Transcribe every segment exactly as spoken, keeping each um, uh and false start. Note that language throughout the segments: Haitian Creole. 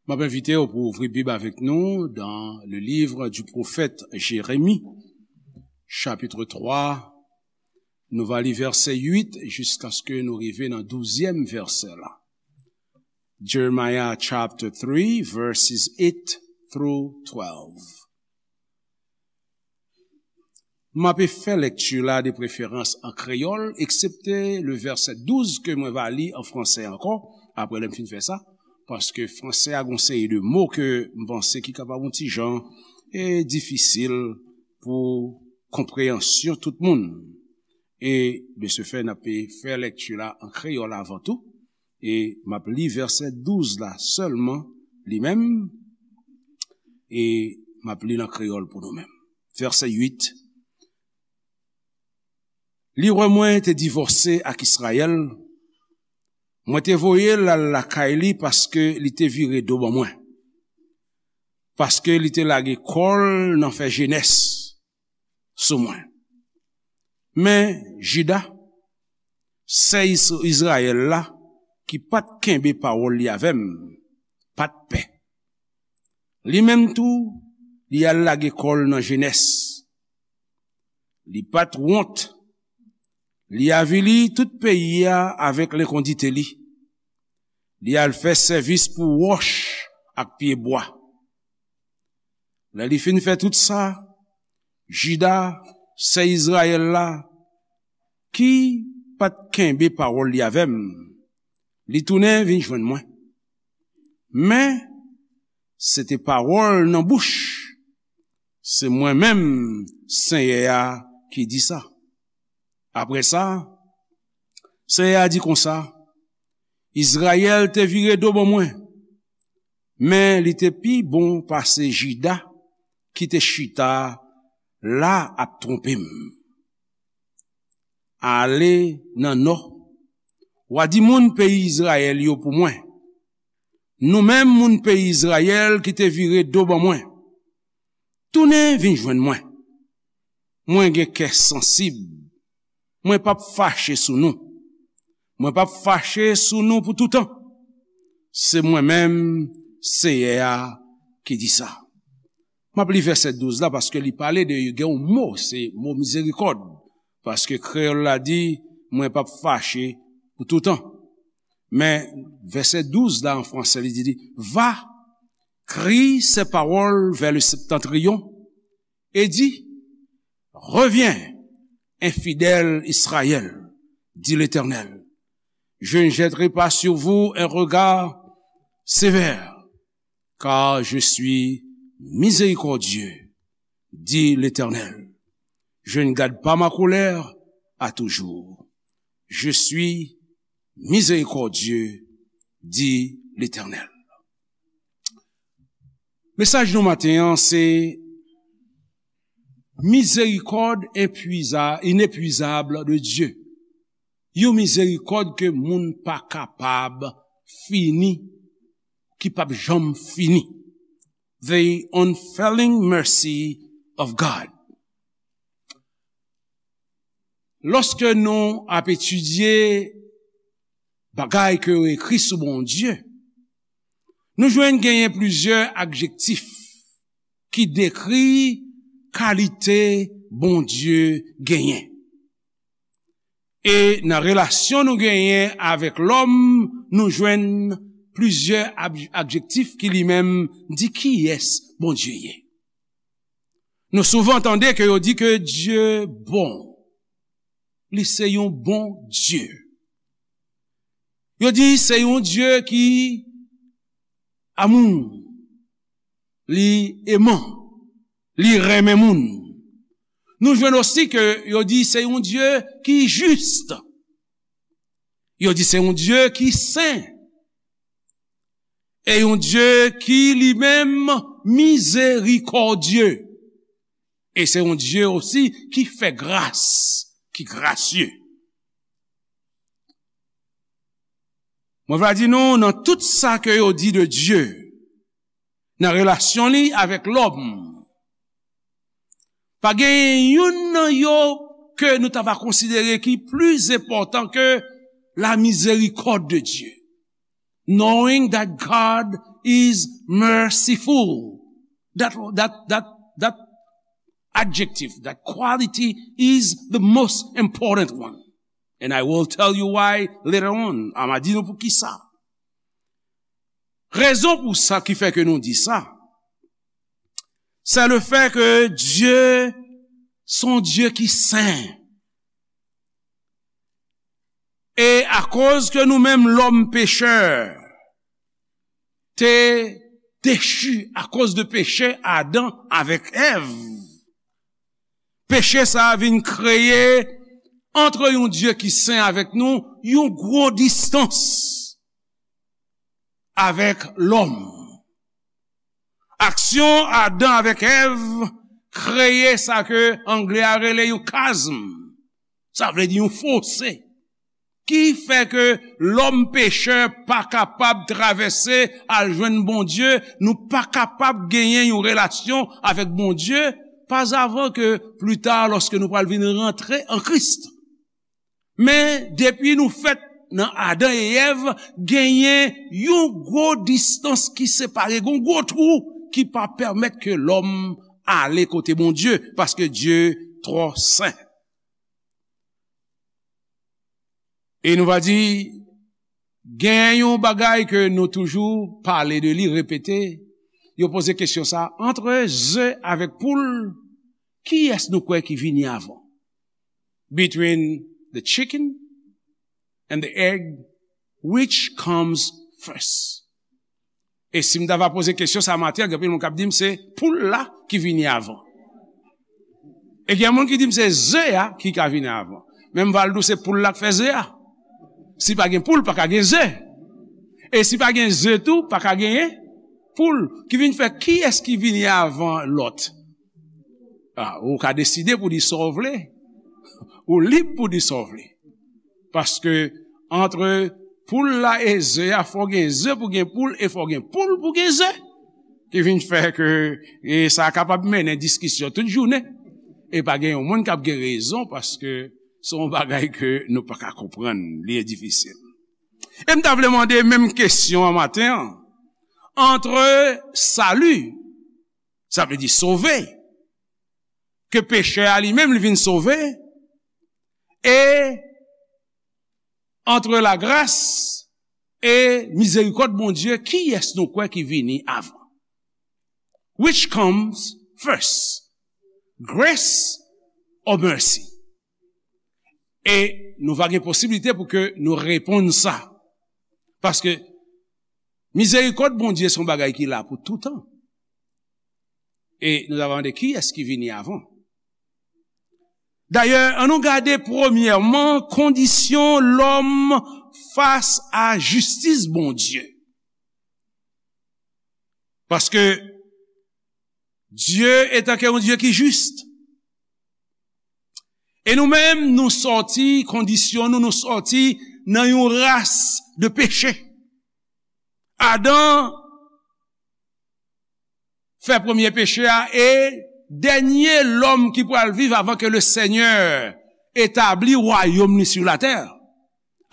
M ap envite w pou ouvri Bib avèk nou dans le livre du prophète Jérémie, chapitre trois. Nou va li vèsè uit jiskaske nou rive nan douzyèm vèsè la. Jeremiah chapter three, verses eight through twelve. M ape fè lèkti la de preferans an kreyòl, eksepte le vèsè douz ke mwen va li an fransè ankò, apre lè m fin fè sa, paske fransè a gon seri de mo ke m panse ki kapab yon ti jan e difisil pou konpreyansyon tout moun. E de ce fait, n ape fè lèkti la an kreyòl avan tou. E m ap li vèsè douz la sèlman, li menm, e m ap li l an kreyòl pou nou menm. Vèsè uit. Li wè mwen te divòse ak Izrayèl, mwen te voye l al lakay li paske li te vire do ban mwen, paske li te lage kò l nan fè jenès sou mwen. Men Jida, sè Is-, Izrayèl la, ki pa t kenbe pawòl li avè m, pa t pè. Li menm tou, li al lage kò l nan jenès. Li pa t wont. Li avili tout peyi a avèk lenkondite li. Li al fè sèvis pou wòch ak pyebwa. Lè li fin fè tout sa, Jida, sè Izrayèl la, ki pa t kenbe pawòl li avè m, li tounen vin jwenn mwen. Men, se te pawòl nan bouch, se mwen menm, Senyè a, ki di sa. Apre sa, Senyè a di konsa, Izrayèl te vire do ban mwen, men li te pi bon pase Jida ki te chita la ap twonpe m. Ale nan nò, w a di moun peyi Izrayèl yo pou mwen, nou menm moun peyi Izrayèl ki te vire do ban mwen, tounen vin jwenn mwen. Mwen gen kè sansib. Mwen p ap fache sou nou. Mwen p ap fache sou nou pou toutan. Se mwen menm, Seyè a, ki di sa. M ap li vèsè douz la paske li pale de gen yon mo, se mo mizerikòd. Paske kreyòl la di, mwen p ap fache pou toutan. Men vèsè douz la an fransè, li di, li, va, crie ces paroles vers le septentrion, et dis, reviens, infidèle Israël, dit l'Éternel. Je ne jetterai pas sur vous un regard sévère, car je suis miséricordieux, dit l'Éternel. Je ne garde pas ma colère à toujours. Je suis miséricordieux, dit l'Éternel. Mesaj nou maten an se mizerikòd enpuiza-, inepwizab de Dye. Yon mizerikòd ke moun pa kapab fini, ki p ap janm fini. The unfailing mercy of God. Lòske nou ap etidye bagay ke yo ekri sou Bondye, nou jwenn genyen plizyè adjektif ki dekri kalite Bondye genyen. E nan relasyon nou genyen avèk lòm, nou jwenn plizyè ab-, adjektif ki li menm di kiyès Bondye ye. Nou souvan tande ke yo di ke Dye bon. Li se yon bon Dye. Yo di se yon Dye ki amou, li eman, li renmen moun. Nou jwenn osi ke yo di se yon Dye ki jis. Yo di se yon Dye ki sen. E yon Dye ki li menm mizerikòdye. E se yon Dye osi ki fè gras, ki grasye. Mwen va di nou, nan tout sa ke yo di de Dye, nan relasyon li avèk lòm, pa gen youn nan yo ke nou ta va konsidere ki pli enpòtan ke la miséricorde de Dieu. Knowing that God is merciful. That, that, that, that adjective, that quality is the most important one. And I will tell you why later on. A m a di nou pou ki sa. Rezon pou sa ki fè ke nou di sa, c'est le fait que Dieu, son Dieu ki sen. E akoz ke nou menm lòm pechè te dechi akoz de peche Adan avèk Èv, peche sa a vin kreye antre yon Dye ki sen avèk nou yon gwo distans avèk lòm. Aksyon Adan avèk Èv kreye sa ke anglè a rele yon kazm. Sa vle di yon fose. Ki fè ke lòm pechè pa kapab travèse al jwenn Bondye, nou pa kapab genyen yon relasyon avèk Bondye, pa avan ke pli ta, lòske nou pral vin rantre an Kris. Men depi nou fèt nan Adan e Èv, genyen yon gwo distans ki separe, gon gwo twou ki pa pèmèt ke lòm ale kote Bondye, paske Dye twò sen. E nou va di, gen yon bagay ke nou toujou pale de li, repete, yo poze kesyon sa, antre ze avèk poul, kiyès nou kwè ki vini avan? Between the chicken and the egg, which comes first? E si m ta va poze kesyon sa maten an, gen anpil moun k ap di m se poul la ki vini avan. E gen moun ki di m se ze a ki ka vini avan. Men m va al di w se poul la k fè ze a. Si pa gen poul, pa ka gen ze. E si pa gen ze tou, pa ka genyen poul. Ki vin fè kiyès ki vini avan lòt? A, ou ka deside pou di sa w vle. Ou lib pou di sa w vle. Paske antre poul la e ze a, fò gen ze pou gen poul, e fò gen poul pou gen ze. Ki vin fè ke, e sa kapab mennen diskisyon tout jounen. E pa gen yon moun k ap gen rezon, paske se yon bagay ke nou pa ka konprann, li difisil. E m ta vle mande menm kesyon an maten an. Antre sali, sa vle di sove, ke pechè a li menm li vin sove, e antre lagras e mizerikòd Bondye, kiyès nou kwè ki vini avan? Which comes first? Grace or mercy? E nou va gen posiblite pou ke nou reponn sa. Paske mizerikòd Bondye se yon bagay ki la pou toutan. E nou ta va mande kiyès ki vini avan. Dayè, ann nou gade premyèman kondisyon lòm fas a jistis Bondye. Paske Dye etanke yon Dye ki jis. E nou menm, nou sòti, kondisyon nou, nou sòti nan yon ras de peche. Adan fè premye peche a, e dènye lòm ki pral viv avan ke le Senyè etabli wayòm li sou latè.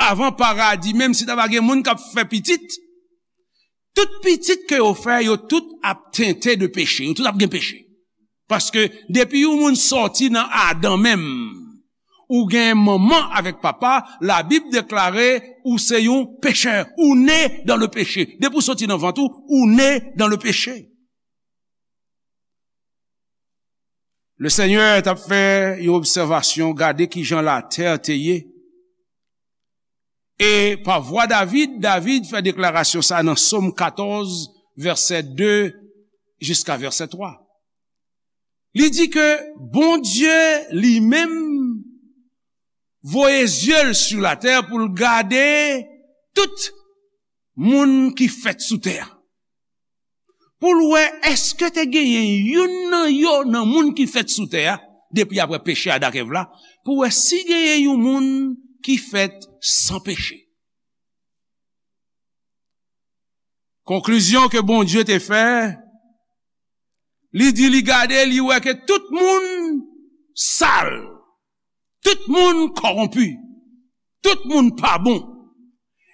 Avan paradi, menm si ta va gen moun k ap fè pitit, tout pitit ke yo fè, yo tout ap tente de peche, yo tout ap gen peche. Paske depi yon moun sòti nan Adan menm, ou gen manman avèk papa, Labib deklare ou se yon pechè, ou ne dan le peche. Depi w sòti nan vant ou, ou ne dan le peche. Le Senyè t ap fè yon obsèvasyon, gade kijan latè te ye. E pa vwa David, David fè deklarasyon sa nan Sòm katòz, vèsè de jiska vèsè twa. Li di ke Bondye li menm voye zye l sou latè pou l gade tout moun ki fèt sou tè a. Pou l wè èske te genyen youn nan yo, nan moun ki fèt sou tè a, depi apre peche Adan ak Èv la, pou wè si genyen yon moun ki fèt san peche. Konklizyon ke Bondye te fè, li di li gade, li wè ke tout moun sal, tout moun kòwonpi, tout moun pa bon.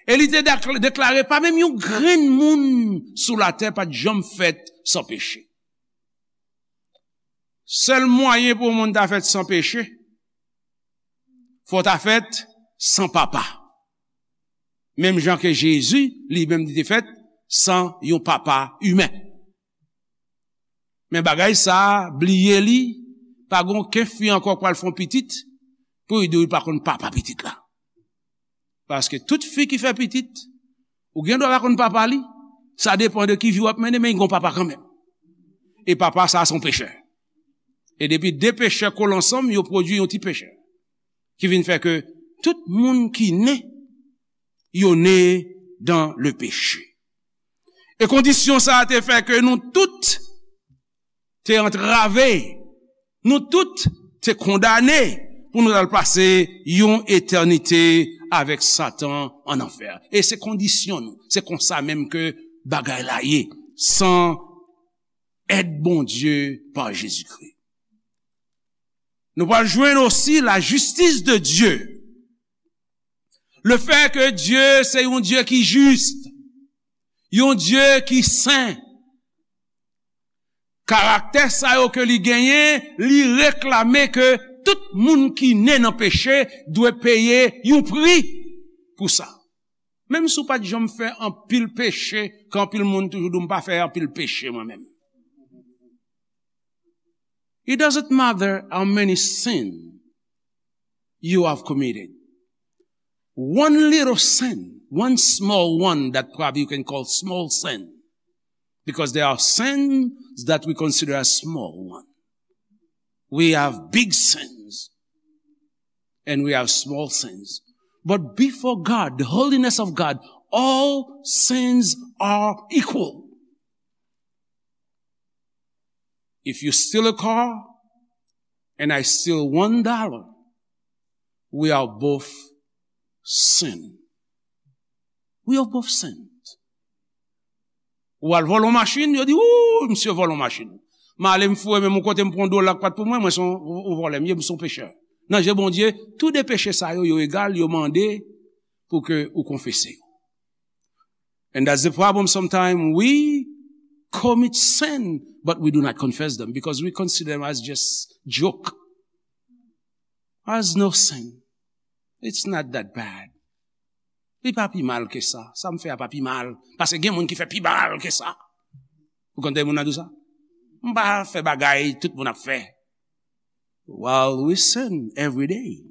E li te dakl-, deklare, pa menm yon grenn moun sou latè pa t janm fèt san peche. Sèl mwayen pou yon moun ta fèt san peche, fò w ta fèt san papa. Menm jan ke Jezi, li menm, li te fèt san yon papa imen. Men bagay sa a, bliye li, pa gen okenn fi ankò k pral fè yon pitit, pou li di w li pa konn papa pitit la. Paske tout fi ki fè pitit, ou gen dwa pa konn papa li, sa depann de ki vi w ap mennen, men li gen yon papa kanmenm. E papa sa a se yon pechè. E depi de pechè kole ansanm, yo pwodui yon ti pechè. Ki vin fè ke tout moun ki ne, yo ne dans le péché. E kondisyon sa a te fè ke nou tout te antrave, nou tout te kondane pou nou al pase yon etènite avèk Satan an anfè. E se kondisyon nou. Se konsa menm ke bagay la ye, san èd Bondye pa Jezikri. Nou pral jwenn osi la justice de Dieu. Le fait que Dieu se yon Dye ki jis, yon Dye ki sen. Karaktè sa yo ke li genyen, li reklame ke tout moun ki ne nan peche dwe peye yon pri pou sa. Menm si w pa t janm fè anpil peche, ke anpil moun toujou di w, "M pa fè anpil peche mwen menm." It doesn't matter how many sin you have committed. One little sin, one small one that probably you can call small sin, because there are sins that we consider as small one. We have big sins and we have small sins. But before God, the holiness of God, all sins are equal. If you steal a car and I steal one dollar, we are both sin. We are both sinned. Ou al vòlè yon machin, yo di, "Ooh, misye vòlè yon machin." M ale, m foure men m yon kote, m pran yon dola k pa t pou mwen, mwen se yon, yon, yon vòlè, m ye, m se yon pechè. Nan je Bondye, tou de peche sa yo, yo egal, yo mande pou ke ou konfese yo. And that's the problem. Sometimes we commit sin, but we do not confess them because we consider them as just joke. As no sin. It's not that bad. Li pa pi mal ke sa. Sa m fè a pa pi mal. Paske gen moun ki fè pi mal ke sa. Ou konn tande moun nan di w sa? M pa fè bagay tout moun ap fè. While we sin every day.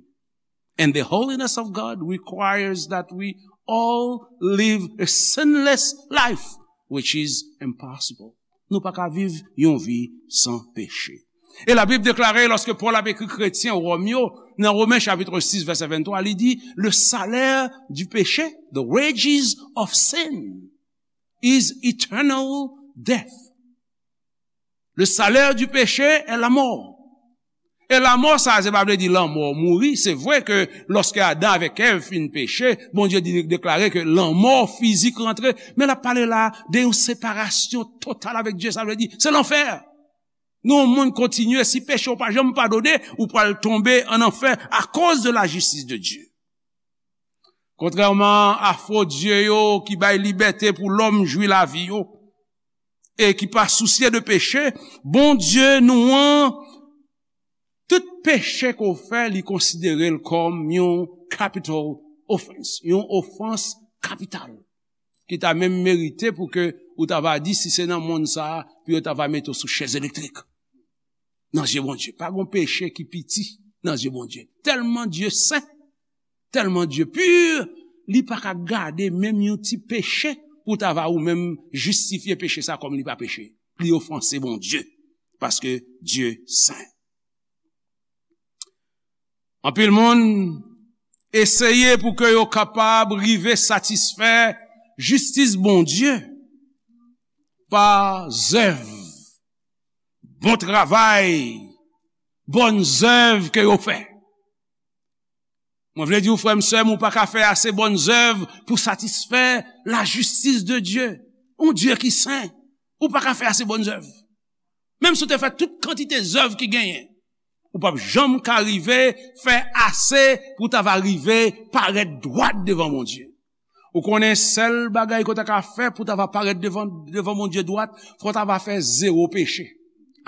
And the holiness of God requires that we all live a sinless life, which is impossible. Nou pa ka viv yon vi san peche. E Labib deklare, lòske Pòl ap ekri kretyen Wòm yo, nan Women chapit sis, vèsè venntwa, li di, "Le salaire du péché, the wages of sin, is eternal death." Le salaire du péché est la mort. E lanmò sa, se pa vle di lanmò mouri. Se vre ke lòske Adan avèk Èv fin peche, Bondye di, deklare ke lanmò fizik rantre. Men l ap pale la de yon separasyon total avèk Dye. Sa vle di, se lanfè. Nan yon monn kontinye, si peche w pa janm padone, ou pral tonbe an anfè akoz de la justice de Dieu. Kontrèman a fo dye yo ki bay libète pou lòm jwi lavi yo, e ki pa sousye de peche, Bondye nou an, tout peche ke w fè, li konsidere l kòm yon capital offense, yon ofans kapital, ki ta menm merite pou ke ou ta va di, si se nan monn sa a, pou yo ta va mete w sou chèz elektrik. Nan zye Bondye, pa gen peche ki piti nan zye Bondye. Tèlman Dye sen, tèlman Dye pi, li pa ka gade menm yon ti peche pou ta va ou menm jistifye peche sa kòm li pa peche. Li ofanse Bondye, paske Dye sen. Anpil moun eseye pou ke yo kapab rive satisfè jistis Bondye pa zèv, bon travay, bòn zèv ke yo fè. Mwen vle di w, frè m, sè m, ou pa ka fè ase bòn zèv pou satisfè la justice de Dieu. Yon Dye ki sen, ou pa ka fè ase bòn zèv. Menm si w te fè tout kantite zèv ki genyen, ou p ap janm ka rive fè ase pou w ta va rive parèt dwat devan Bondye. Ou konnen sèl bagay ke w ta ka fè pou w ta va parèt devan, devan Bondye dwat, fò w ta va fè zewo peche.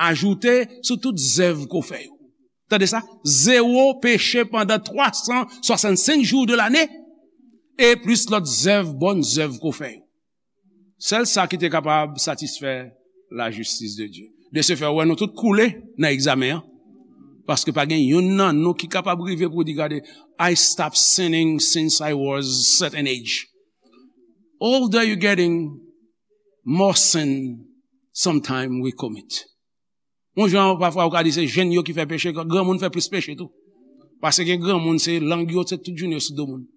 Ajoute sou tout zèv ke w fè yo. Tande sa, zewo peche pandan twa san swasannsenk jou de lane, e plis lòt zèv, bòn zèv ke w fè yo. Sèl sa ki te kapab satisfè lajistis de Dye. De se fè, ou wè nou tout koule nan egzamen an. Paske pa gen youn nan nou ki kapab rive pou di, "Gade, I stopped sinning since I was certain age." Older you getting, more sin sometime we commit. Yon jan, pafwa, ou ka di se jenn yo ki fè peche, granmoun fè plis peche tou. Paske gen granmoun, se lang yo, se tout jounen yo sou do moun.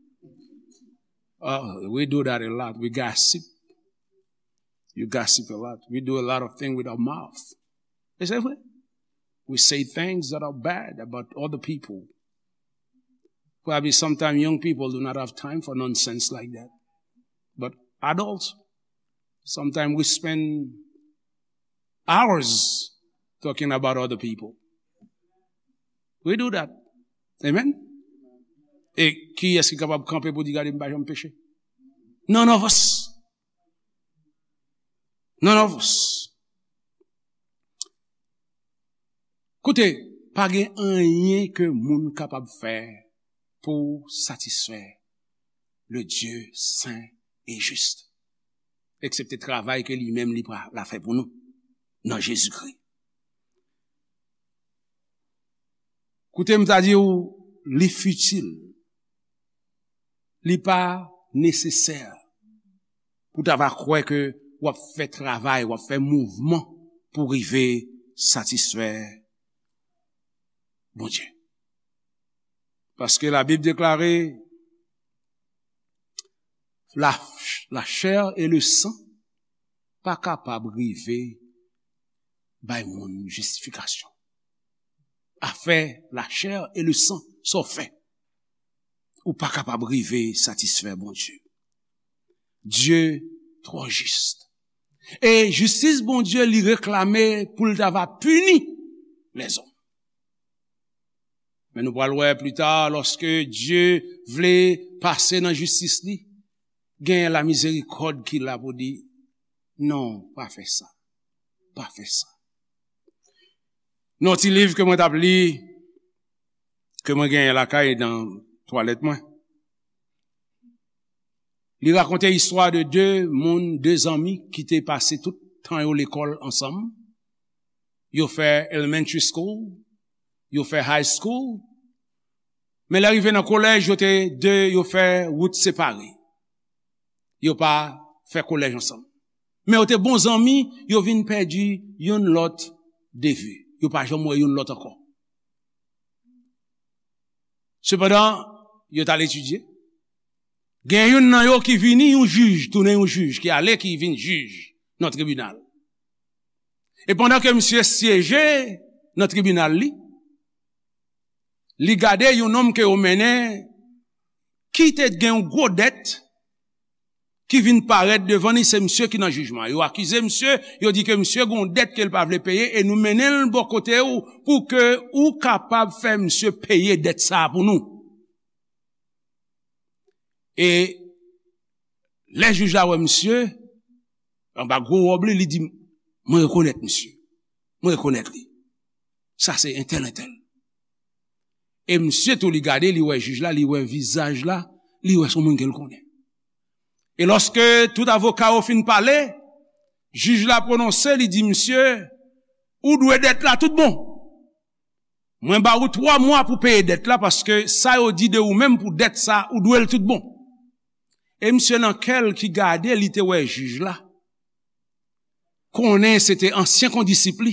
Uh, we do that a lot. We gossip. You gossip a lot. We do a lot of things with our mouth. E se vre. We say things that are bad about other people. Probably sometimes young people do not have time for nonsense like that. But adults, sometimes we spend hours talking about other people. We do that. Amen? E kiyès ki kapab kanpe pou di, "Gade, m pa janm peche"? None of us. None of us. Koute, pa gen anyen ke moun kapab fè pou satisfè le Dieu saint et juste, eksepte travay ke li menm li pral fè pou nou nan Jezikri. Koute, m ta di w, li fitil, li pa nesesè pou ta va kwè ke w ap fè travay, w ap fè mouvman pou rive satisfè Bondye. Paske Labib deklare, la, la chair et le sang pa kapab rive bay moun jistifikasyon. Afè la chair et le sang, sa w fè, ou pa kapab rive satisfè Bondye. Dye twò jis. E jistis Bondye, li reklame pou l ta va pini lèzòm. Men nou pral wè pli ta, lòske Dye vle pase nan jistis li, gen lamizerikòd ki la pou di, "Non, pa fè sa. Pa fè sa." Nan yon ti liv ke mwen t ap li, ke mwen genyen lakay nan twalèt mwen, li rakonte istwa de de moun, de zanmi ki te pase tout tan yo lekòl ansanm. Yo fè elementary school, yo fè high school, men lè rive nan kolèj, yo te de, yo fè wout separe. Yo pa fè kolèj ansanm. Men yo te bon zanmi, yo vin pèdi youn lòt de vi. Yo pa janm wè youn lòt ankò. Sepandan, yo t al etidye. Gen youn nan yo ki vini yon jij, tounen yon jij, ki ale, ki vin jij nan tribinal. E pandan ke misye syeje nan tribinal li, li gade yon nonm ke yo mennen ki te gen yon gwo dèt ki vin parèt devan li, se misye ki nan jijman. Yo akize misye, yo di ke misye gen yon dèt ke l pa vle peye e nou mennen l bò kote w pou ke ou kapab fè misye peye dèt sa a pou nou. E lè jij la wè misye, anba gwo wòb li, li di, "Mwen rekonèt misye. Mwen rekonèt li. Sa se entèl, entèl." E misye tou, li gade, li wè jij la, li wè vizaj la, li wè se yon moun ke l konnen. E lòske tout avoka yo fin pale, jij la pwononse, li di misye, "Ou dwe dèt la tout bon. Mwen ba ou twa mwa pou peye dèt la, paske sa yo di de ou menm pou dèt sa, ou dwe l tout bon." E misye nan kè l ki gade, li te wè jij la, konnen se te ansyen kondisip li.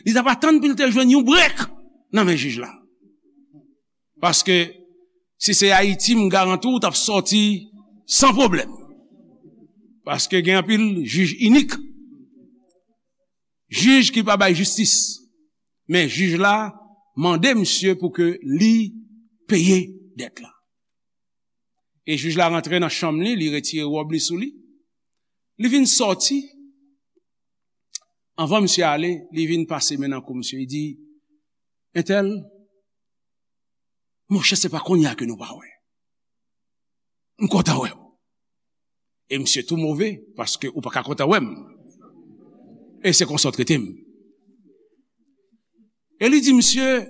Li t ap atann pou l te jwenn yon brèk nan men jij la. Paske si se Ayiti, m garanti w t ap sòti san pwoblèm. Paske gen anpil jij inik. Jij ki pa bay jistis. Men jij la mande misye pou ke li peye dèt la. E jij la rantre nan chanm li, li retire wòb li sou li. Li vin sòti. Anvan misye ale, li vin pase men nan kou misye. Li di, "Entèl, monchè, se pa kounye a ke nou pa wè. M kontan wè w." E misye tou move, paske ou pa ka kontan wè m. E se konsa w trete m. E li di misye,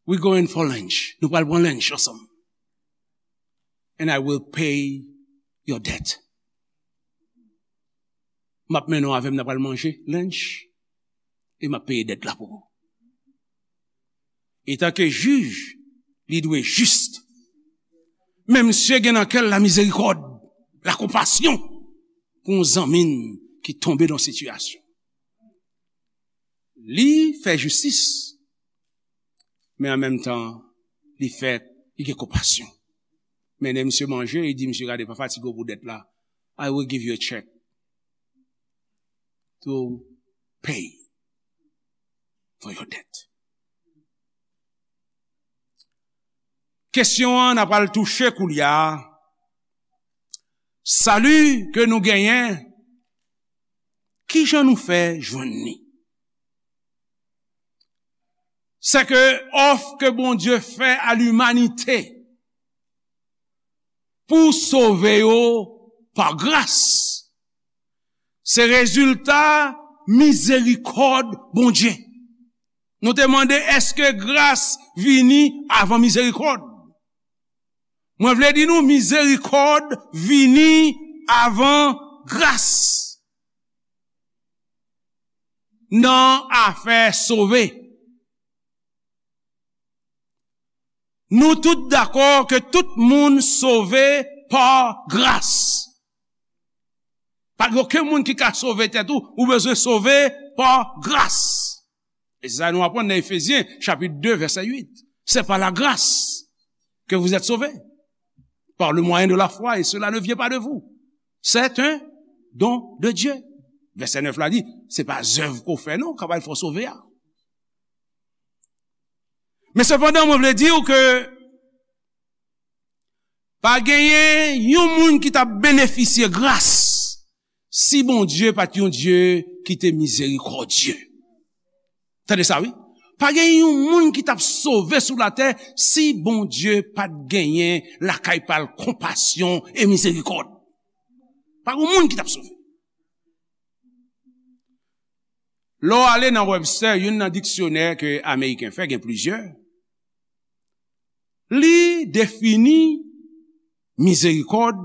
"We going for lunch. Nou pral pran lunch ansanm. And I will pay your debt." M ap mennen w avè m, n a pral manje lunch, e m ap peye dèt la pou ou. Etanke jij, li dwe jis. Men misye gen nan kè l lamizerikòd, lakonpasyon pou yon zanmi n ki tonbe nan sitiyasyon. Li fè jistis, men an menm tan, li fè, li gen konpasyon. Mennen misye manje, li di misye, "Gade, pa fatige w pou dèt la. I will give you a check to pay for your debt." Kesyon an, n a pral touche koulye a. Sali ke nou genyen, kijan nou fè jwenn li? Sè ke òf ke Bondye fè a limanite pou sove yo pa gras, se rezilta mizerikòd Bondye. Nou te mande, èske gras vini avan mizerikòd? Mwen vle di nou, mizerikòd vini avan gras nan afè sove. Nou tout dakò ke tout moun sove pa gras. Pa gen okenn moun ki ka sove tèt ou, ou bezwen sove pa gras. E se sa nou aprann nan Efezyen, chapit de, vèsè uit. C'est par la grâce que vous êtes sauvés, par le moyen de la foi, et cela ne vient pas de vous. C'est un don de Dieu. Vèsè nèf la di, se pa zèv ke w fè non, k ap fè w sove a. Men sepandan, mwen vle di w ke pa genyen yon moun ki t ap benefisye gras si Bondye pa t yon Dye ki te mizerikòdye. Tande sa, wi. Pa genyen yon moun ki t ap sove sou latè si Bondye pa t genyen lakay pa l konpasyon e mizerikòd. Pa gen moun ki t ap sove. Lè w ale nan Webster, youn nan diksyonè ke Ameriken fè, gen plizyè, li defini mizerikòd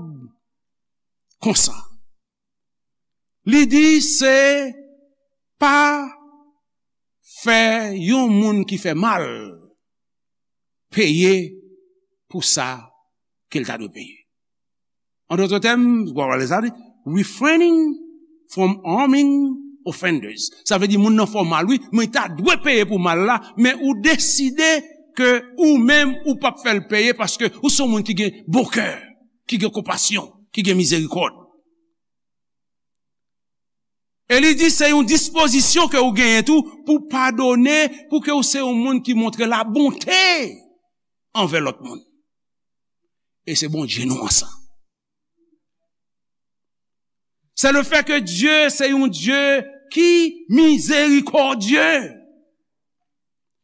konsa. Li di se pa fè yon moun ki fè mal peye pou sa ke l ta dwe peye. An dòt tèm, w ap pale sa, li, refraining from harming offenders. Sa vle di moun nan fè w mal, wi, men li ta dwe peye pou mal la, men ou deside ke ou menm ou p ap fè l peye paske ou se yon moun ki gen bon kè, ki gen konpasyon, ki gen mizerikòd. E li di se yon dispozisyon ke ou genyen tou pou padone, pou ke ou se yon moun ki montre labonte anvè lòt moun. E se Bondye nou an sa. C'est le fait que Dieu se yon Dye ki mizerikòdye.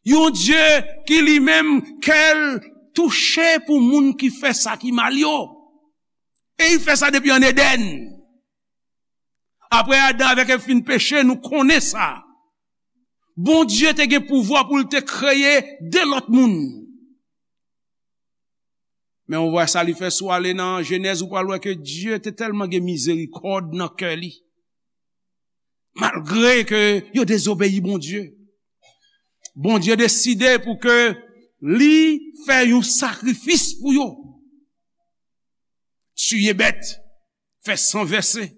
Yon Dye ki li menm kè l touche pou moun ki fè sa ki mal yo. E li fè sa depi an Edenn. Apre Adan avèk Èv fin peche, nou konnen sa. Bondye te gen pouvwa pou l te kreye de lòt moun. Men ou wè sa li fè, si w ale nan Jenèz, ou pral wè ke Dye te tèlman gen mizerikòd nan kè li. Malgre ke yo dezobeyi Bondye, Bondye deside pou ke li fè yon sakrifis pou yo. Tiye bèt, fè san vèse.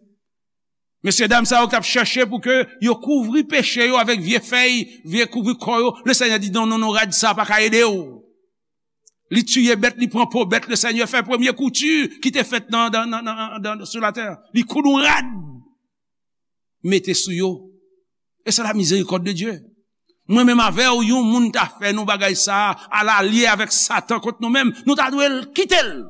Mesyedam sa yo k ap chèche pou ke yo kouvri peche yo avèk vye fèy, vye kouvri kò yo, Lesenyè di, "Non, non, non, rad sa pa ka ede w." Li tiye bèt, li pran po bèt, Lesenyè fè premye kouti ki te fèt nan, nan, nan, nan, nan, sou latè. Li koud yon rad, mete sou yo. E se la mizerikòd de Dye. Mwen menm avè w, yon moun ta fè nou bagay sa a, al alye avèk Satan kont nou menm, nou ta dwe l kite l.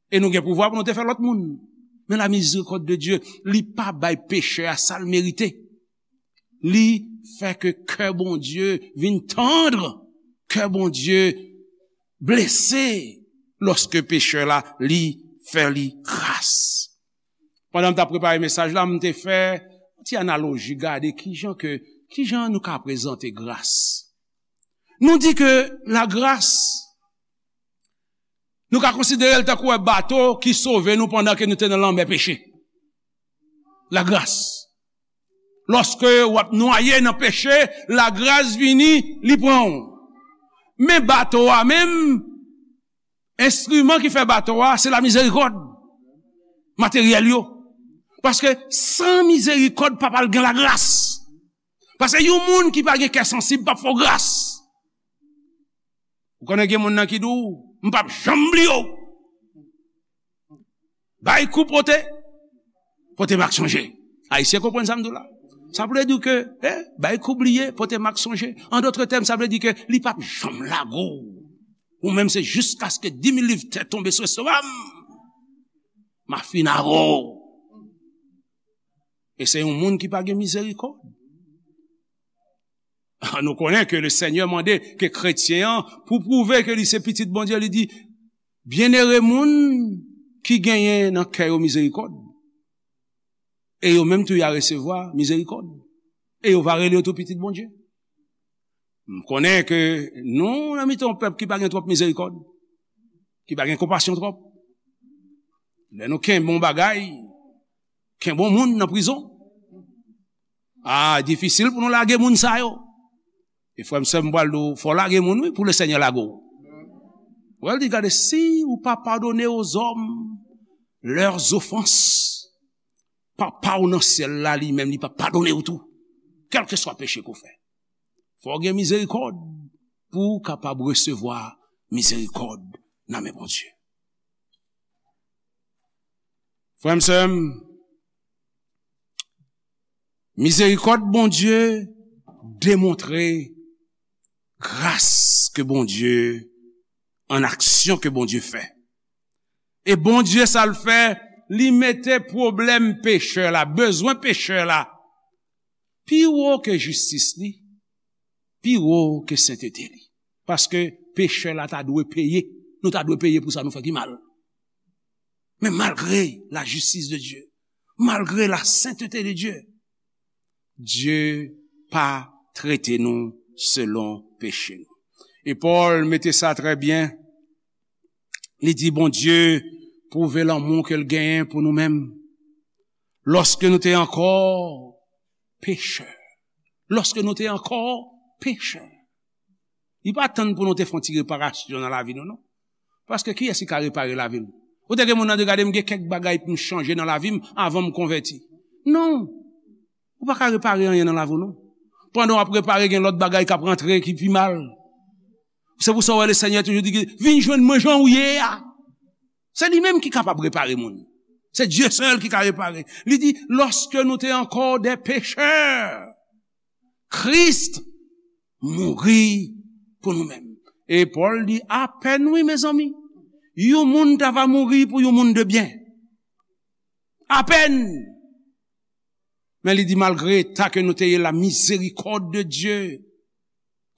E nou gen pouvwa pou nou te fè lòt moun. Men la mizerikòd de Dye, li pa bay pechè a sa l merite. Li fè ke kè Bondye vin tann, kè Bondye blese lòske pechè la, li fè li gras. Pandan m t ap prepare mesaj la, m te fè yon ti analoji, gade kijan ke, kijan nou ka prezante gras. Nou di ke lagras, nou ka konsidere l tankou yon bato ki sove nou pandan ke nou te nan lanmè peche. Lagras. Lòske w ap nwaye nan peche, lagras vini, li pran w. Men bato a menm, enstriman ki fè bato a, se lamizerikòd. Materyèl yo. Paske san mizerikòd, pa pral gen lagras. Paske yon moun ki pa gen kè sansib p ap fè w gras. Ou konnen gen moun nan ki di w, "M p ap janm bliye w." Bay kou pote, pote mak sonje. Ayisyen konprann sa m di w la. Sa vle di ke, eh, bay kou bliye, pote mak sonje. An dòt tèm, sa vle di ke li p ap janm lage w. Ou menm se jiskaske di mil liv tè tonbe sou estoma m, m a fin avè w. E se yon moun ki pa gen mizerikòd. Nou konnen ke le Senyè mande ke kretyen an, pou pwouve ke li se pitit Bondye, li di, "Byennere moun ki genyen nan kè yo mizerikòd, e yo menm tou y a resevwa mizerikòd, e yo va rele yo tou pitit Bondye." M konnen ke nou nan mitan yon pèp ki pa gen twòp mizerikòd, ki pa gen konpasyon twòp. Lè nou kenbe yon bagay, kenbe yon moun nan prizon, a, difisil pou nou lage moun sa yo. E frè m, sè m, m pral di w, fò w lage moun, wi, pou le Senyè lage w. Wè, l di, gade, si ou pa padone aux hommes leurs offenses, Papa w nan syèl la, li menm, li p ap padone w tou, kèlkeswa peche ke w fè. Fò w gen mizerikòd pou w kapab resevwa mizerikòd nan men Bondye. Frè m, sè m, mizerikòd Bondye demontre gras ke Bondye, an aksyon ke Bondye fè. E Bondye, sa l fè, li mete pwoblèm pechè la, bezwen pechè la, pi wo ke jistis li, pi wo ke sentete li. Paske pechè la ta dwe peye. Nou ta dwe peye pou sa nou fè ki mal. Men malgre la justice de Dieu, malgre la sainteté de Dieu, Dye pa trete nou selon peche nou. E Pòl mete sa trè byen. Li di, Bondye pwouve lanmou ke l genyen pou nou menm. Lòske nou te ankò pechè. Lòske nou te ankò pechè. Li pa tann pou nou te fè yon ti reparasyon nan lavi nou, non. Paske kiyès ki ka repare lavi l? Ou te gen moun nan di, gade, m gen kèk bagay pou m chanje nan lavi m avan m konvèti. Non. Ou pa ka repare anyen nan lavi w, non. Pandan w ap repare, gen lòt bagay k ap rantre ki pi mal. Se pou sa w wè Lesenyè toujou di, vin jwenn mwen jan w ye a. Se li menm ki kapab repare moun. Se Dye sèl ki ka repare. Li di, lòske nou te ankò dè pechè, Kris mouri pou nou menm. E Pòl di, apèn wi, mezanmi. Yon moun ta va mouri pou yon moun de byen. Apèn. Men li di, malgre eta ke nou te ye, la miséricorde de Dieu,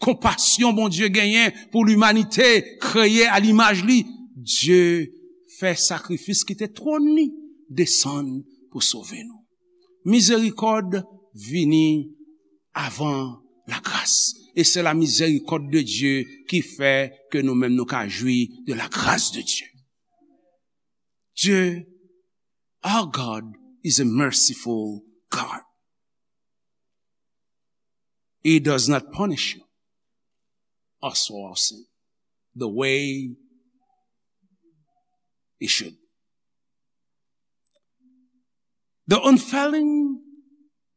konpasyon Bondye genyen pou limanite, kreye a limaj li, Dye fè sakrifis, kite twòn li desann pou sove nou. Mizerikòd vini avan lagras. E se la miséricorde de Dieu ki fè ke nou menm nou ka jwi de la grâce de Dieu. Dieu, our God is a merciful God. He does not punish you as for our sin, the way he should. The unfailing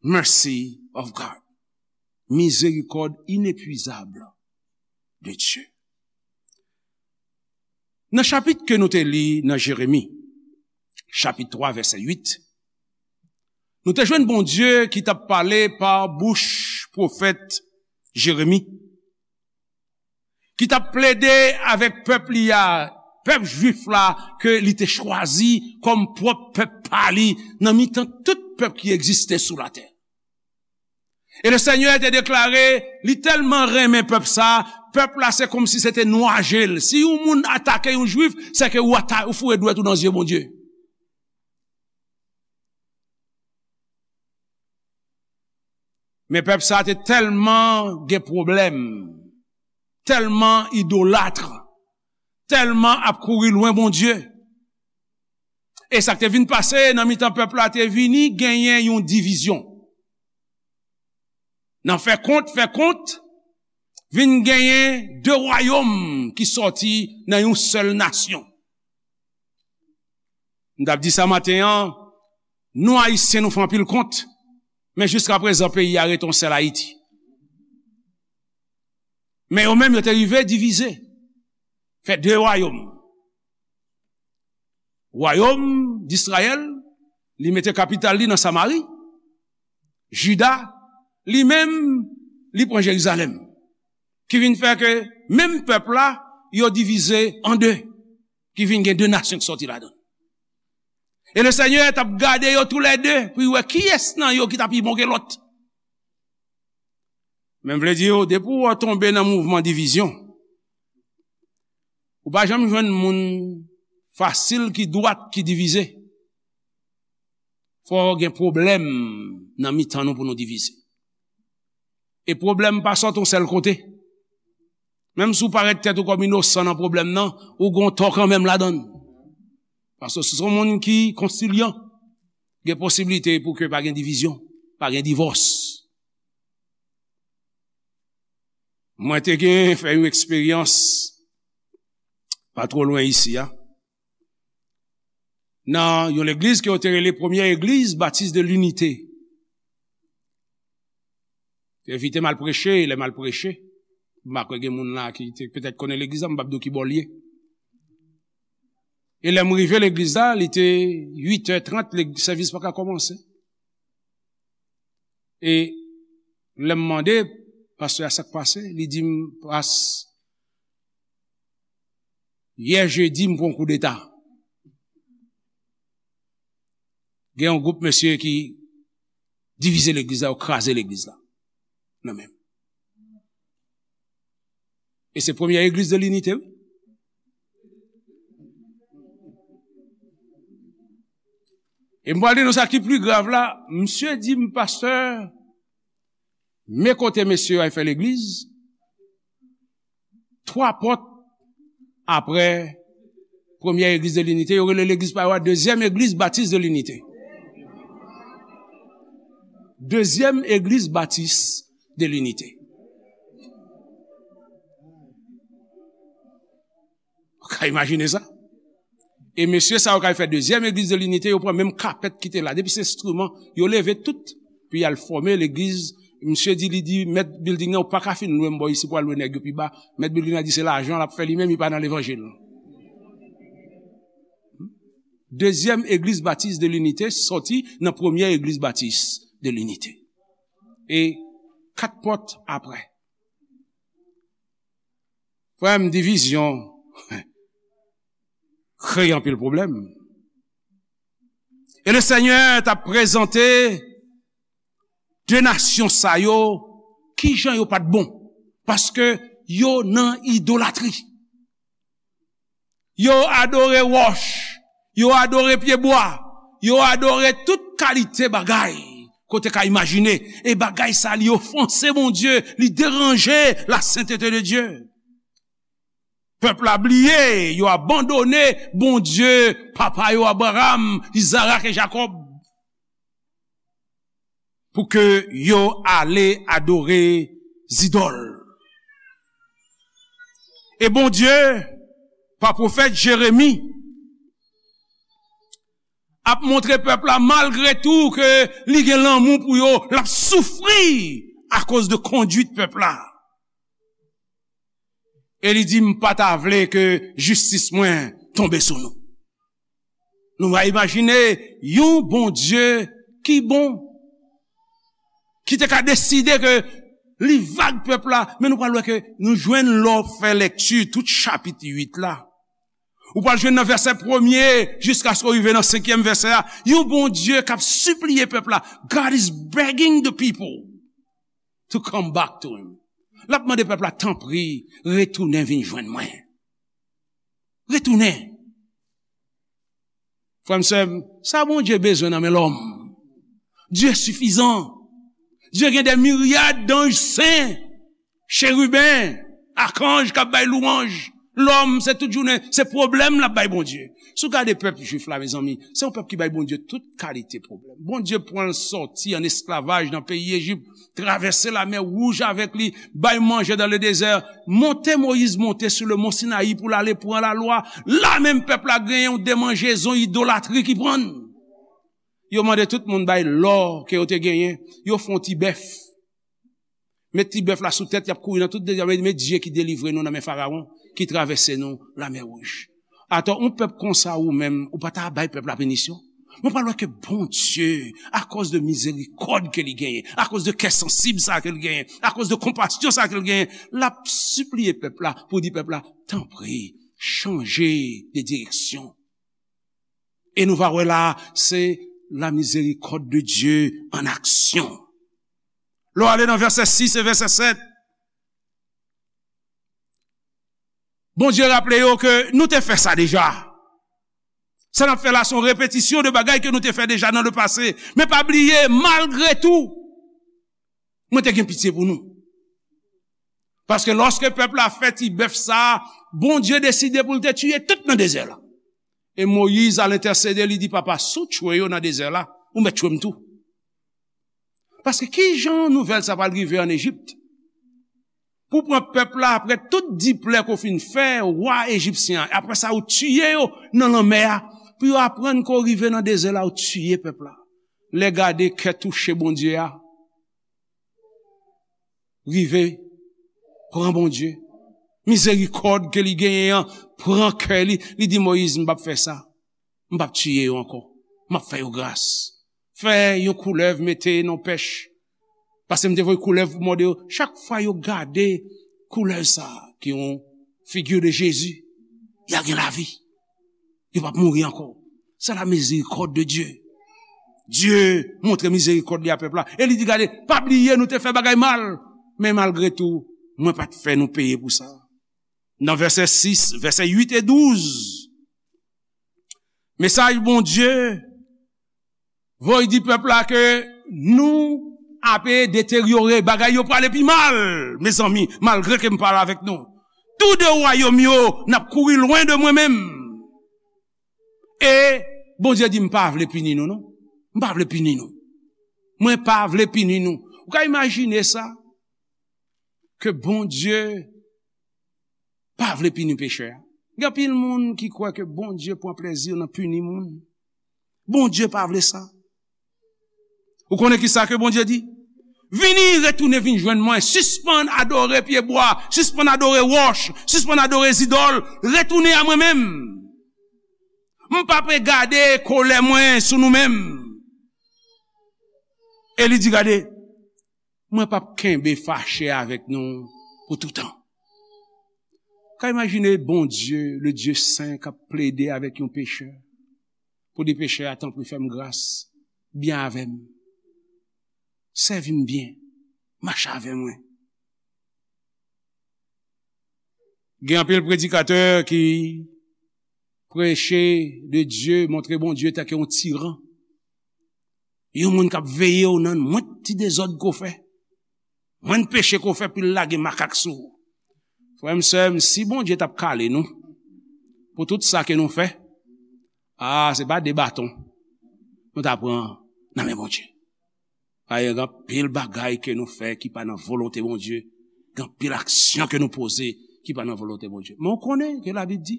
mercy of God. Mizerikòd inepuizab de Dye. Nan chapit ke nou te li nan Jeremi, chapit twa, vèsè uit, nou te jwenn Bondye ki t ap pale pa bouch pwofèt Jeremi, ki t ap plede avèk pèp li a, pèp jwif la, ke li te chwazi kòm pwòp pèp pa li, nan mitan tout pèp ki egziste sou latè. E Lesenyè te deklare, li tèlman renmen pèp sa, pèp la se kòmsi se te nwa je l. Si yon moun atake yon jwif, se ke ou ata-, ou foure dwèt ou nan zye Bondye. Men pèp sa a te tèlman gen pwoblèm, tèlman idolat, tèlman ap kouri lwen Bondye. E sa k te vin pase nan mitan pèp la te vini genyen yon divizyon. Nan fè kont, fè kont, vin genyen de wayòm ki sòti nan yon sèl nasyon. M t ap di sa maten an, nou Ayisyen nou fè anpil kont, men jiska prezan peyi a rete yon sèl Ayiti. Men yo menm yo te rive divize, fè de wayòm. Wayòm d Izrayèl, li mete kapital li nan Samari. Jida, li menm, li pran Jerizalèm. Ki vin fè ke menm pèp la, yo divize an de. Ki vin gen de nasyon ki sòti ladan. E Lesenyè t ap gade yo toulède pou l wè kiyès nan yo ki t ap pi bon ke lòt. Men m vle di w, depi w tonbe nan mouvman divizyon, ou pa janm jwenn moun fasil ki dwat ki divize. Fò gen pwoblèm nan mitan nou pou nou divize. E pwoblèm pa sòti yon sèl kote. Menm si w parèt tèt ou kòm inosan nan pwoblèm nan, ou gon tò kanmenm ladan l. Paske si se yon moun ki konsilyan, gen posiblite pou ke pa gen divizyon, pa gen divòs. Mwen te gen fè yon eksperyans pa twò lwen isi a. Nan yon legliz ke yo te rele Premyè Egliz Batis de Linite. Te envite m al preche, lè m al preche, m pa kwè gen moun la ki te petèt konnen legliz la, m p ap di w ki bò l ye. E lè m rive legliz la, li te uit è trant, leg-, sèvis pa ka kòmanse. E lè m mande pastè a sa k pase, li di m, "Pas, yè jedi, m pran koudeta." Gen yon gwoup mesye ki divize legliz la, yo kraze legliz la. Nan men m. E se Premyè Egliz de Linite, wi. E m pral di nou sa ki pli grav la, misye di m, "Pastè, men kote mesye yo al fè legliz, twa pòt apre Premyè Egliz de Linite, yo rele legliz pa yo a Dezyèm Egliz Batis de Linite." Dezyèm Egliz Batis de Linite. Ou ka imajine sa? E mesye sa yo k al fè Dezyèm Egliz de Linite, yo pran menm kapèt ki te la. Depi se enstriman, yo leve tout, pou y al fòme legliz. Misye di, li di, mèt bilding nan, "Ou pa ka fin lwe m bò isi pou al lwe nèg yo pi ba." Mèt bilding nan di se lajan l ap fè li menm, li pa nan levanjil. Dezyèm Egliz Batis de Linite sòti nan Premyè Egliz Batis de Linite. E kat pòt apre. Frè m, divizyon kreye anpil pwoblèm. E Lesenyè t ap prezante de nasyon sa yo, kijan yo pa t bon, paske yo nan idolatri. Yo adore wòch, yo adore pyebwa, yo adore tout kalite bagay ke w te ka imajine. E bagay sa, li ofanse Bondye, li deranje la sentete de Dye. Pèp la bliye, yo abandone Bondye papa yo Abraram, Izarak e Jakòb. Pou ke yo ale adore zidòl. E Bondye, pa pwofèt Jeremi, ap montre pèp la, malgre tou ke li gen lanmou pou yo, l ap soufri akoz de kondwit pèp la. E li di, "M pa ta vle ke jistis mwen tonbe sou nou." Nou va imajine yon Bondye ki bon, ki te ka deside ke li vag pèp la, men nou pral wè ke nou jwenn lè w fè lèkti tout chapit uit la. Ou pral jwenn nan vèsè premye jiskaske w rive nan senkyèm vèsè a, yon Bondye k ap sipliye pèp la. God is begging the people to come back to him. L ap mande pèp la, "Tanpri, retounen vin jwenn mwen. Retounen." Frè m, sè m, sa Bondye bezwen nan men lòm? Dye sifizan. Dye gen de miryad danj sen, cheriben, akanj k ap bay lwanj. Lòm, se tout jounen, se pwoblèm l ap bay Bondye. Si w gade pèp jwif la, mezanmi, se yon pèp ki bay Bondye tout kalite pwoblèm. Bondye pran l sòti an esklavaj nan peyi Ejip, travèse Lamè Wouj avèk li, bay manje dans le désert, monte Moyiz monte sou le mont Sinayi pou l ale pran lalwa. La menm pèp la genyen yon demanjezon idolatri ki pran l. Yo mande tout moun bay lò ke yo te genyen, yo fè yon ti bèf. Met ti bèf la sou tèt, y ap kouri nan tout dezè, men Dye ki delivre nou nan men Farawon, ki travèse nou Lamè Wouj. Atò, yon pèp konsa ou menm, ou pa ta bay pèp la pinisyon? Mwen pa wè ke Bondye, akoz de mizerikòd ke li genyen, akoz de kè sansib sa ke li genyen, akoz de konpasyon sa ke li genyen, l ap sipliye pèp la pou di pèp la, tanpri, chanje de direksyon. E nou va wè la, se la miséricorde de Dieu en action. Lè w ale nan vèsè sis e vèsè sèt, Bondye raple yo ke nou te fè sa deja. Sa n ap fè la, se yon repetisyon de bagay ke nou te fè deja nan le pase. Men pa bliye, malgre tou, mwen te gen pitye pou nou. Paske lòske pèp la fè ti bèf sa a, Bondye deside pou l te tiye tout nan dezè la. E Moyiz al entèsede, li di, Papa, si w tchwe yo nan dezè la, ou mèt tchwe m tou. Paske ki jan nouvèl sa pral rive ann Ejip? Pou pran pèp la, apre tout diplè ke w fin fè, wa ejipsyen an, apre sa, ou tiye yo nan lanmè a, pou yo aprann ke w rive nan dezè la, ou tiye pèp la. Lè gade kè touche Bondye a, rive pran Bondye. Mizerikòd ke li genyen an pran kè li. Li di Moyiz, "M p ap fè sa. M p ap tiye yo ankò. M ap fè yo gras. Fè yon koulèv mete nan pèch." Paske m te voye koulèv pou mòde yo. Chak fwa yo gade koulèv sa a, ki yon figi de Jezi, y a gen lavi. Yo p ap mouri ankò. Se la miséricorde de Dieu. Dye montre mizerikòd li a pèp la. E li di, "Gade, pa bliye nou te fè bagay mal. Men malgre tou, mwen pa t fè nou peye pou sa." Nan vèsè sis, vèsè uit e douz, mesaj Bondye voye di pèp la ke nou ape deteryore, bagay yo prale pi mal, mezanmi, malgre ke m pale avèk nou. Tou de wayòm yo, n ap kouri lwen de mwen menm. E Bondye di, "M pa vle pini nou, non. M pa vle pini nou. Mwen pa vle pini nou." Ou ka imajine sa? Ke Bondye pa vle pini pechè a. Gen anpil moun ki kwè ke Bondye pran plezi nan pini moun. Bondye pa vle sa. Ou konnen ki sa ke Bondye di? "Vini, retounen vin jwenn mwen. Sispann adore pyebwa, sispann adore wòch, sispann adore zidòl. Retounen a mwen menm. M p ap gade kolè mwen sou nou menm." E li di, "Gade, mwen p ap kenbe fache avèk nou pou toutan." Ka imajine Bondye, le Dieu saint, k ap plede avèk yon pechè, pou di pechè a, "Tanpri, fè m gras, byen avè m, sèvi m byen, mache avè mwen." Gen anpil predikatè ki preche de Dye, montre Bondye tanke yon tiran. Yon moun k ap veye w nan mwen ti dezòd ke w fè, mwen peche ke w fè, pou l lage makak sou ou. Frè m, sè m, si Bondye t ap kale nou pou tout sa ke nou fè, a, se pa de baton nou ta pran nan men Bondye. Paske gen anpil bagay ke nou fè ki pa nan volonte Bondye. Gen anpil aksyon ke nou poze ki pa nan volonte Bondye. Men w konnen ke Labib di,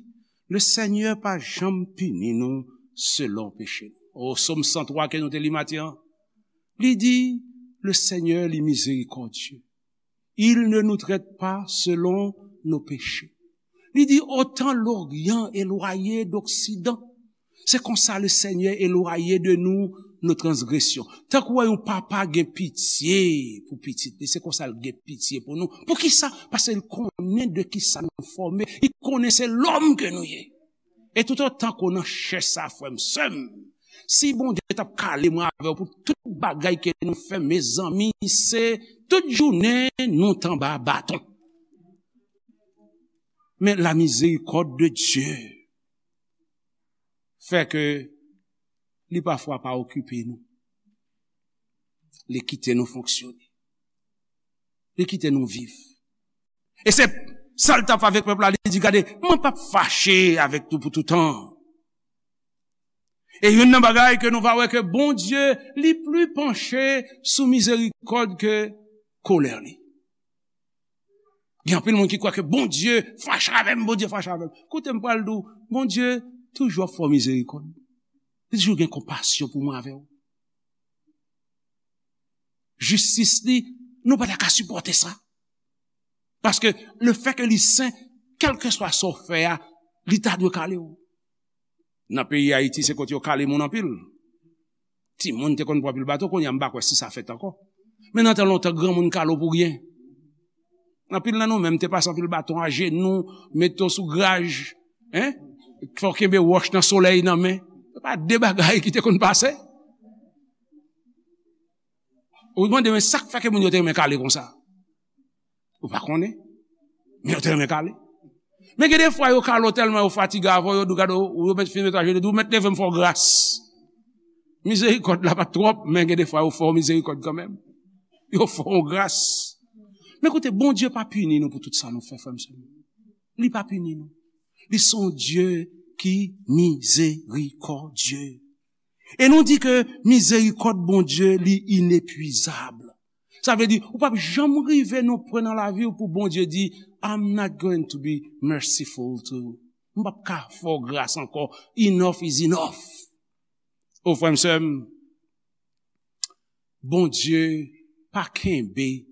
le Senyè pa janm pini nou selon peche nou. O, Sòm san twa ke nou te li maten an, li di, le Senyè li mizerikòdye. Il ne nous traite pas selon nos péchés. Li di, autant l'Orient éloigné d'Occident. Se konsa le Senyè elwaye de nou nos transgressions. Tankou wè yon papa gen pitye pou pitit li, se konsa l gen pitye pou nou. Poukisa? Paske l konnen de kisa nou fòme, li konnen se lòm ke nou ye. E toutotan ke w nan chè sa, frè m, sè m, si Bondye t ap kale mwen avè w pou tout bagay ke nou fè, mezanmi, se tout jounen nou t anba baton. Men la miséricorde de Dieu fè ke li pafwa pa okipe nou. Li kite nou fonksyone. Li kite nou viv. E se sa l t ap fè avèk pèp la, li di, "Gade, mwen p ap fache avèk nou pou toutan." E youn nan bagay ke nou va wè ke Bondye, li pli panche sou mizerikòd ke kolè li. Gen anpil moun ki kwè ke Bondye fache avè m, Bondye fache avè m. Koute, m pral di w, Bondye toujou ap fè w mizerikòd. Li toujou gen konpasyon pou mwen avè w. Jistis li, nou pa ta ka sipòte sa. Paske lefètke li sen, kèlkeswa sa w fè a, li ta dwe kale w. Nan peyi Ayiti, se kote yo kale moun anpil. Timoun te konn pran anpil baton, kounye a m pa kwè si sa fèt ankò. Men nan tan lontan, granmoun kale w pou ryen. Anpil nan nou menm te pase anpil baton ajenou, mete w sou graj, en? Fè w kenbe wòch nan solèy nan men. Se pa de bagay ki te konn pase. Ou mande, men sa k fè ke moun yo te renmen kale konsa? Ou pa konnen? Men yo te renmen kale. Men gen de fwa yo kale w tèlman yo fatige avè w, yo di w, "Gade, ou, yo met, fin met ajenou, di w, 'Mèt, leve m, fè w gras.'" Mizerikòd la pa t twòp, men gen de fwa yo fè w mizerikòd kanmenm. Yo fè w gras. Men koute, Bondye pa pini nou pou tout sa nou fè, frè m, sè m. Li pa pini nou. Li se yon Dye ki mizerikòdye. E nou di ke mizerikòd Bondye, li inepwizab. Sa vle di, ou p ap janm rive nan yon pwen nan lavi w pou Bondye di, "I'm not going to be merciful to you." M p ap ka fè w gras ankò. Enough is enough. O frè m, sè m, Bondye pa kenbe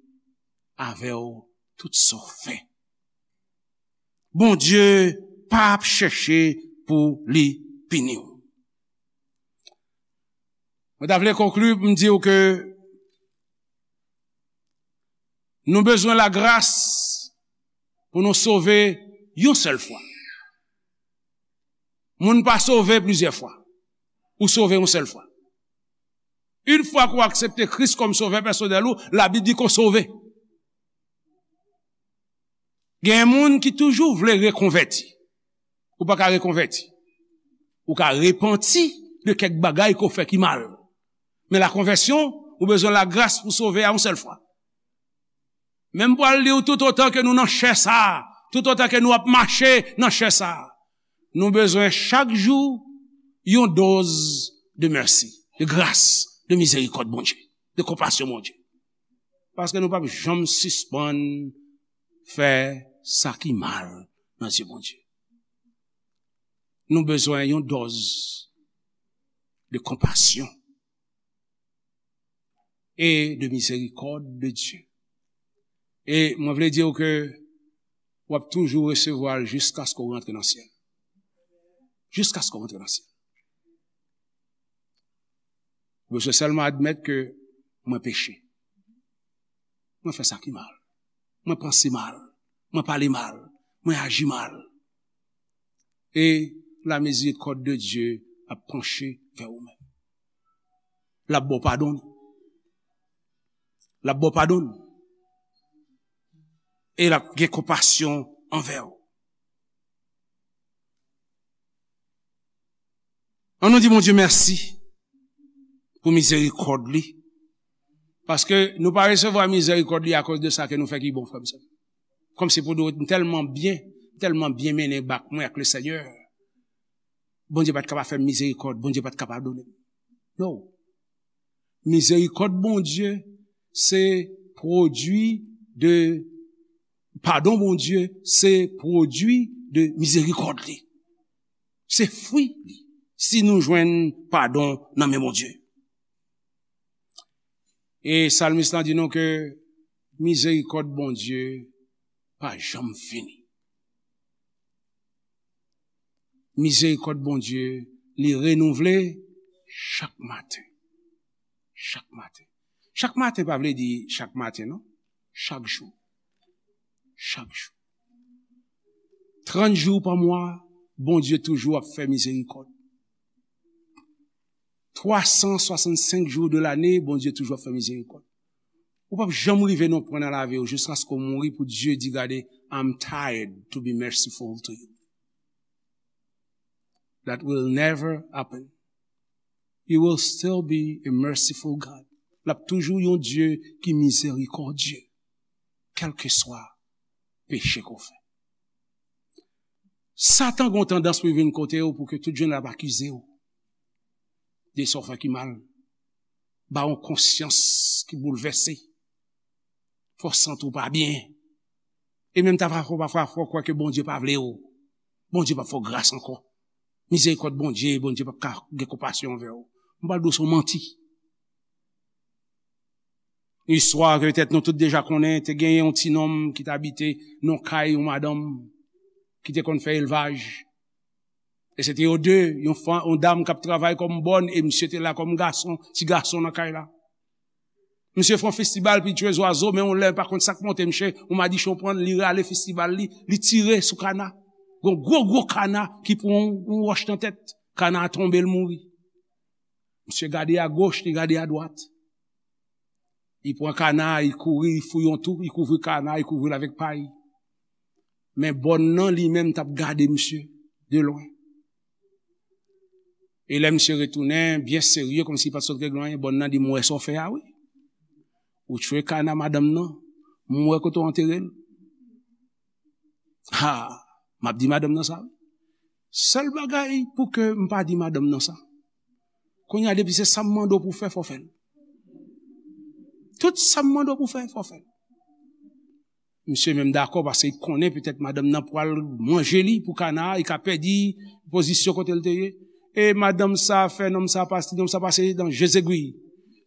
avè w tout sa w fè. Bondye pa ap chèche pou li pini w. Mwen ta vle konkli pou m di w ke nou bezwen lagras pou nou sove yon sèl fwa. Moun pa sove plizyè fwa. Ou sove yon sèl fwa. Yon fwa ke w aksepte Kris kòm sovè pèsonèl ou, Labib di ke w sove. Gen moun ki toujou vle rekonvèti. Ou pa ka rekonvèti. Ou ka repanti de kèk bagay ke w fè ki mal. Men lakonvèsyon, ou bezwen lagras pou sove a yon sèl fwa. Men m pral di w, toutotan ke nou nan chè sa a, toutotan ke nou ap mache nan chè sa a, nou bezwen chak jou yon doz de mèsi, de gras, de mizerikòd Bondye, de konpasyon Bondye. Paske nou p ap janm sispann fè sa ki mal nan zye Bondye. Nou bezwen yon dòz de konpasyon e de mizerikòd de Dye. E mwen vle di w ke w ap toujou resevwa l jiskaske w rantre nan syèl. Jiskaske w rantre nan syèl. Ou bezwen sèlman admèt ke mwen peche. Mwen fè sa ki mal. Mwen panse mal. Mwen pale mal. Mwen aji mal. E la mizerikòd de Dye ap panche vè ou menm. L ap ba w padon. L ap ba w padon. E l ap gen konpasyon anvè w. Ann nou di Bondye mèsi pou mizerikòd li. Paske nou pa resevwa mizerikòd li akoz de sa ke nou fè ki bon, frè m, sè m. Kòmsi pou di w, m tèlman byen, m tèlman byen mennen bak mwen ak Lesenyè. Bondye pa t ka pa fè m mizerikòd, Bondye pa t ka padone m. No. Mizerikòd Bondye se pwodui de, padon Bondye se pwodui de mizerikòd li. Se fwi li, si nou jwenn padon nan men Bondye. E salmis lan di nou ke mizerikòd Bondye pa janm fini. Mizerikòd Bondye, li renouvle chak maten. Chak maten. Chak maten pa vle di chak maten, non. Chak jou. Chak jou. Trant jou pa mwa, Bondye toujou ap fè mizerikòd. Twa san swasannsenk jou de lane, Bondye toujou ap fè mizerikòd. Ou p ap janm rive nan pwen nan lavi w jiskaske w mouri pou Dye di, "Gade, I'm tired to be merciful to you." That will never happen. He will still be a merciful God. L ap toujou yon Dye ki mizerikòdye, kèlkeswa peche ke w fè. Satan gen yon tandans pou l vin kote w pou ke tout jounen l ap akize w de sa w fè ki mal, ba w yon konsyans ki boulvèse, fè w santi w pa byen. E menm ta pafwa, pafwa, fè w kwè ke Bondye pa vle w. Bondye p ap fè w gras ankò. Mizerikòd Bondye, Bondye p ap ka gen konpasyon anvè w. M pral di w se yon manti. Istwa ke petèt nou tout deja konnen, te genyen yon ti nonm ki t abite nan kay yon madanm ki te konn fè elvaj. E se te yo de, yon, fa- yon dam k ap travay kòm bòn, e misye te la kòm gason, ti gason nan kay la. Misye fè yon festibal, pitye zwazo, men yon lè, pa konn sa k monte misye, yon madichon pran l, li rale festibal li, li tire sou kana. Gon gwo, gwo kana ki pran yon, yon wòch nan tèt. Kana a tonbe, l mouri. Misye gade agoch, li gade adwat. Li pran kana, li kouri, li fouye yon twou, li kouvri kana, li kouvri l avèk pay. Men bòn nan, li menm, t ap gade misye de lwen. E lè misye retounen, byen serye, kòmsi li pa t sot regle anyen, bòn nan di, "M wè sa w fè a, wi. Ou tchwe kana madanm nan, m wè kote w antere l." Ha, m ap di madanm nan sa, wi. Sèl bagay pou ke m pa di madanm nan sa. Kounye a, depi se sa m mande w pou w fè, fò w fè l. Tout sa m mande w pou w fè, fò w fè l. Misye menm dakò, paske li konnen petèt madanm nan pral manje li pou kana a, li ka pèdi pozisyon kote l te ye. E madanm sa fè nonm sa pase, nonm sa pase nan je zegwi.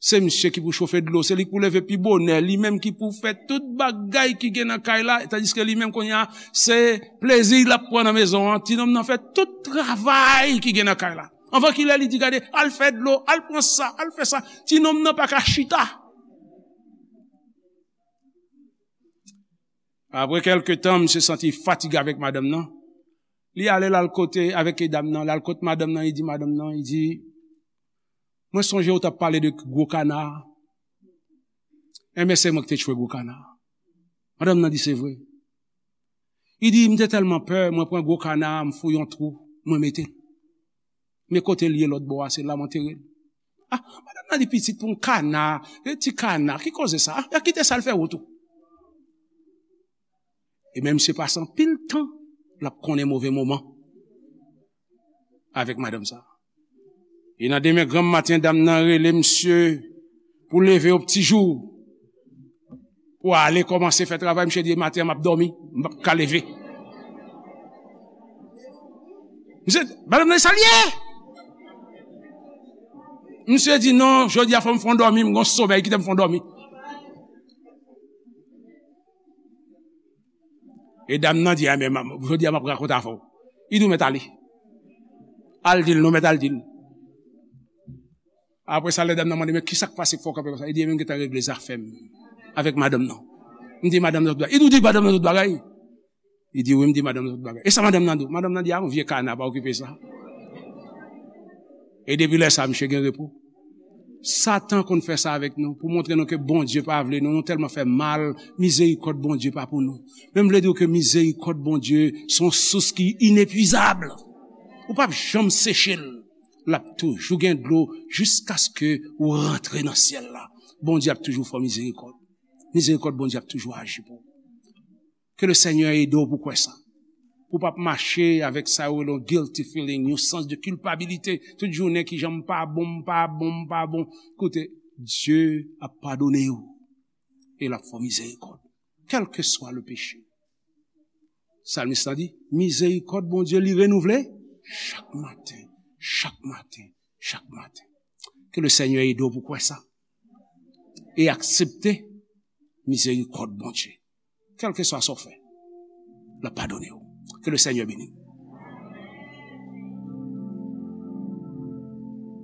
Se misye ki pou chofe dlo, se li ki pou leve pi bonè, li menm ki pou fè tout bagay ki gen nan kay la, tandiske li menm kounye a, se plezi l ap pran nan mezon an. Ti nonm nan fè tout travay ki gen nan kay la. Anvan kilè li di, "Gade, al fè dlo, al pran sa, al fè sa." Ti nonm nan pa ka chita. Apre kèlke tan, misye santi fatige avèk madanm nan. Li ale, l al kote avèk dam nan, l al kot madanm nan, li di madanm nan, li di, "Mwen sonje ou t ap pale de gwo kana a. Enben, se mwen ki te tchwe gwo kana a." Madanm nan di, "Se vre." Li di, "M te tèlman pè, mwen pran gwo kana a, m fouye yon twou, mwen mete l. Men kote l ye lòt bò a, se la m antere l." Ah, madanm nan di, "Pitit, pou yon kana, yon ti kana, ki koze sa? Ah, kite sa, l fè wout ou." E men misye pase anpil tan, l ap konnen move moman avèk madanm sa. E nan demen granm maten, dam nan rele misye pou leve yo pti jou, pou ale kòmanse fè travay. Misye di, "Maten an, m ap dòmi, m p ap ka leve." Misye, madanm nan, sa l ye? Misye di, "Non, jodi a fò m fè yon dòmi, m gon somèy, kite m fè yon dòmi." E dam nan di, "A, men, jodi a m ap rakonte afè w." Li di, "Ou mèt ale. Al di l, non, mèt al di l." Apre sa, lè dam nan mande, "Men ki sa k pase k fè w kanpe konsa?" Li di, "Ebyen, m gentan regle zafè m avèk madanm nan. M di madanm nan tout bagay." Li di, "Ou di madanm nan tout bagay?" Li di, "Wi, m di madanm nan tout bagay." "E sa madanm nan di w?" Madanm nan di, "A, yon vye kana, pa okipe sa." E depi lè sa, misye gen repo. Satan konn fè sa avèk nou, pou montre nou ke Bondye pa vle nou, nou tèlman fè mal, mizerikòd Bondye pa pou nou. Men m vle di w ke mizerikòd Bondye se yon sous ki inepwizab. Ou p ap janm seche l. L ap toujou gen dlo jiskaske ou rantre nan syèl la. Bondye ap toujou fè w mizerikòd. Mizerikòd Bondye ap toujou aji pou ou. Ke le Senyè ede w pou kwè sa. Pou w p ap mache avèk sa yo rele yon guilty feeling, yon sans de kilpabilite. Tout jounen ki jan m pa bon, m pa bon, m pa bon. Koute, Dye ap padone w. E l ap fè w mizerikòd. Kèlkeswa le peche. Salmis la di, mizerikòd Bondye li renouvle chak maten, chak maten, chak maten. Ke le Senyè ede w pou kwè sa. E aksepte mizerikòd Bondye. Kèlkeswa sa w fè, l ap padone w. Ke le Senyè beni w.